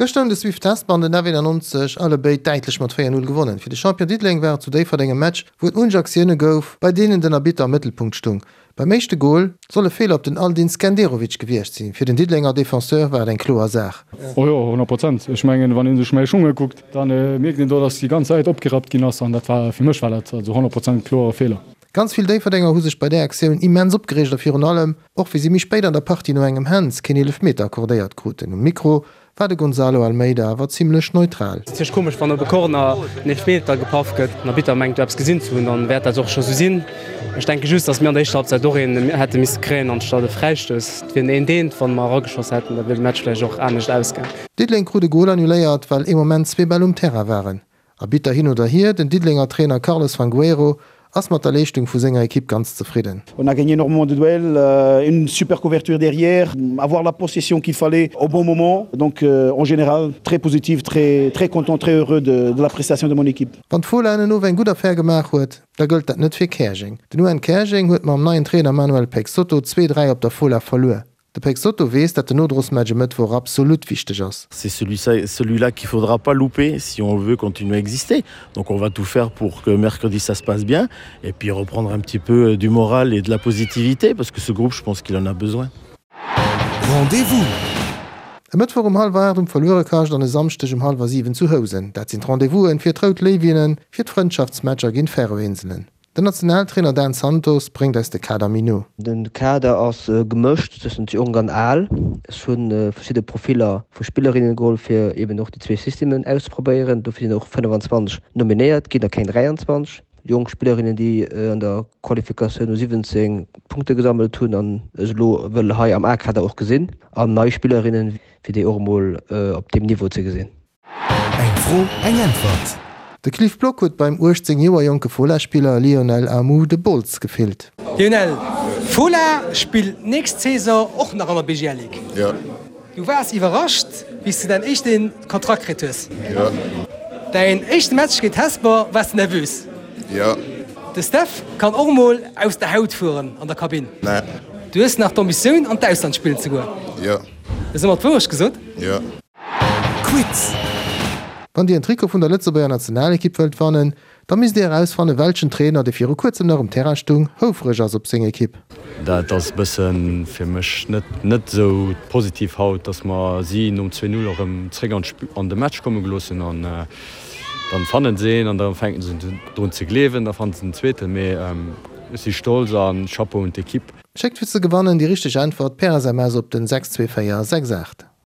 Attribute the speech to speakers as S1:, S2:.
S1: Gëschter hunn de Swift Hesper an den F91 allebéid däitlech mat 4, 0 gewonnen. Fir de Champion Diddeleng war et zu Déifferdeng e Match, wou et munch Aktioune gouf, bei deenen den Arbitter am Mëttelpunkt stung. Beim éischte Gol soll e Feeler op den Aldin Skenderovic gewiescht sinn. Fir den Diddelenger Defenseur war et eng kloer Saach.
S2: Oh jo, 100 Prozent. Ech mengen, wann ee sech mäi Schung ukuckt, da mierkt een do, datt déi ganz Säit opgerappt ginn ass an dat war, fir mech war dat also 100 Prozent kloere Feeler.
S1: Ganz vill Déifferdenger hu sech bei där Aktioun immens opgereegt a virun allem och wéi si méi spéit an der Partie no engem Hands keen Eelefmeter accordéiert kruten. Um Mikro war de Gonzalo Almeida awer zimmlech neutral.
S3: Et ass komesch wann op e Corner en Eelefmeter gepaff gëtt. Den Arbitter mengt do eppes gesinn ze hunn, dann wäert dat och scho sou sinn. Ech denke just, datt mir an der éischter Halbzeit och een hätte misse kréien anstatt e Fräistouss. Et wier en eent-eent, wann mer erageschoss hätten, da wier de Match vläicht och anescht ausgaang.
S1: Diddeleng krut e Gol annuléiert, well ee Moment zwee Bäll um Terrain waren. Arbitter hin oder hier, den Diddelenger Trainer Carlos Fangueiro ass mat der Leeschtung vu senger Ekipp ganz zefridden.
S4: On a gagné énormément de duels, une super couverture derrière, avoir la possession qu'il fallait au bon moment. Donc en général très positif, très très content, très heureux de de la prestation de mon équipe.
S1: Wann d'Fola en Owend eng gutt Affär gemaach huet, da gëllt dat net fir Käerjeng. Den UN Käerjeng huet mam neien Trainer Manuel Peixoto 2, 3 op der Fola verluer. De Peixoto weess, datt den Nodrosmatch e Mëttwoch absolut wichteg ass.
S5: C'est celui-là qu'il faudra pas louper si on veut continuer à exister. Donc on va tout faire pour que mercredi ça se passe bien et puis reprendre un petit peu du moral et de la positivité parce que ce groupe je pense qu'il en a besoin.
S1: Rendez-vous! E Mëttwoch um hallwer 8 um Verluerekascht an e Samschdeg um hallwer 7 zu Housen. Dat sinn d'Rendez-vousen fir d'Rout Léiwinnen fir d'Frëndschaftsmatcher géint d'Färöinselen. Den Nationaltrainer Dan Santos bréngt eis de Kader méi no.
S6: De Kader ass gemëscht tëschent jonk an al. Ech hu verschidde Profiller vu Spillerinnen geholl, fir eben och déi zwee Systemen auszeprobéieren. Dofir sinn och 25 nominéiert ginn a keng 23. Jonk Spillerinnen, déi an der Qualifikatioun U 17 Punkte gesammelt hunn an ech elo wëll hei am A-Kader och gesinn. An nei Spillerinnen, fir déi och emol op deem Niveau ze gesinn.
S1: Eng Fro, eng Äntwert! De Cliff Block huet beim 18 Joer jonke Fola-Spiller Lionel Amou de Bols gefillt.
S7: Lionel, Fola spillt nächst Saison och nach an der BGL Ligue.
S8: Jo.
S7: Du waars iwwerrascht, wéi s de däin éischte Kontrakt kritt hues.
S8: Jo.
S7: Däin éischte Match géint Hesper, waars de nervös?
S8: Jo.
S7: De Steph kann och mol aus der Haut fueren an der Kabinn.
S8: Nee.
S7: Du hues nach d'Ambitioun an d'Ausland spillen ze goen.
S8: Jo.
S7: Hues ëmmer d'Wourecht gesot?
S8: Jo.
S1: Quiz! Wann Dir en Trikot vun der Lëtzebuerger Nationalekipp wëllt wannen, da misst Dir erausfannen, welchen Trainer, dee viru kuerzem nach um Terrain stung, houfreg ass op seng Ekipp.
S9: Dat ass e bëssen fir mech net net esou positiv haut, dass mer si nom 2, 0 erëm zréck an an de Match komme gelooss hunn an dann fannen se een an da fänken se drun ze gleewen, da fannen se den zweeten. Mee ech si stolz a Chapeau un d'Ekipp.
S1: Schéckt fir ze gewannen déi richteg Äntwert per SMS op den 62468.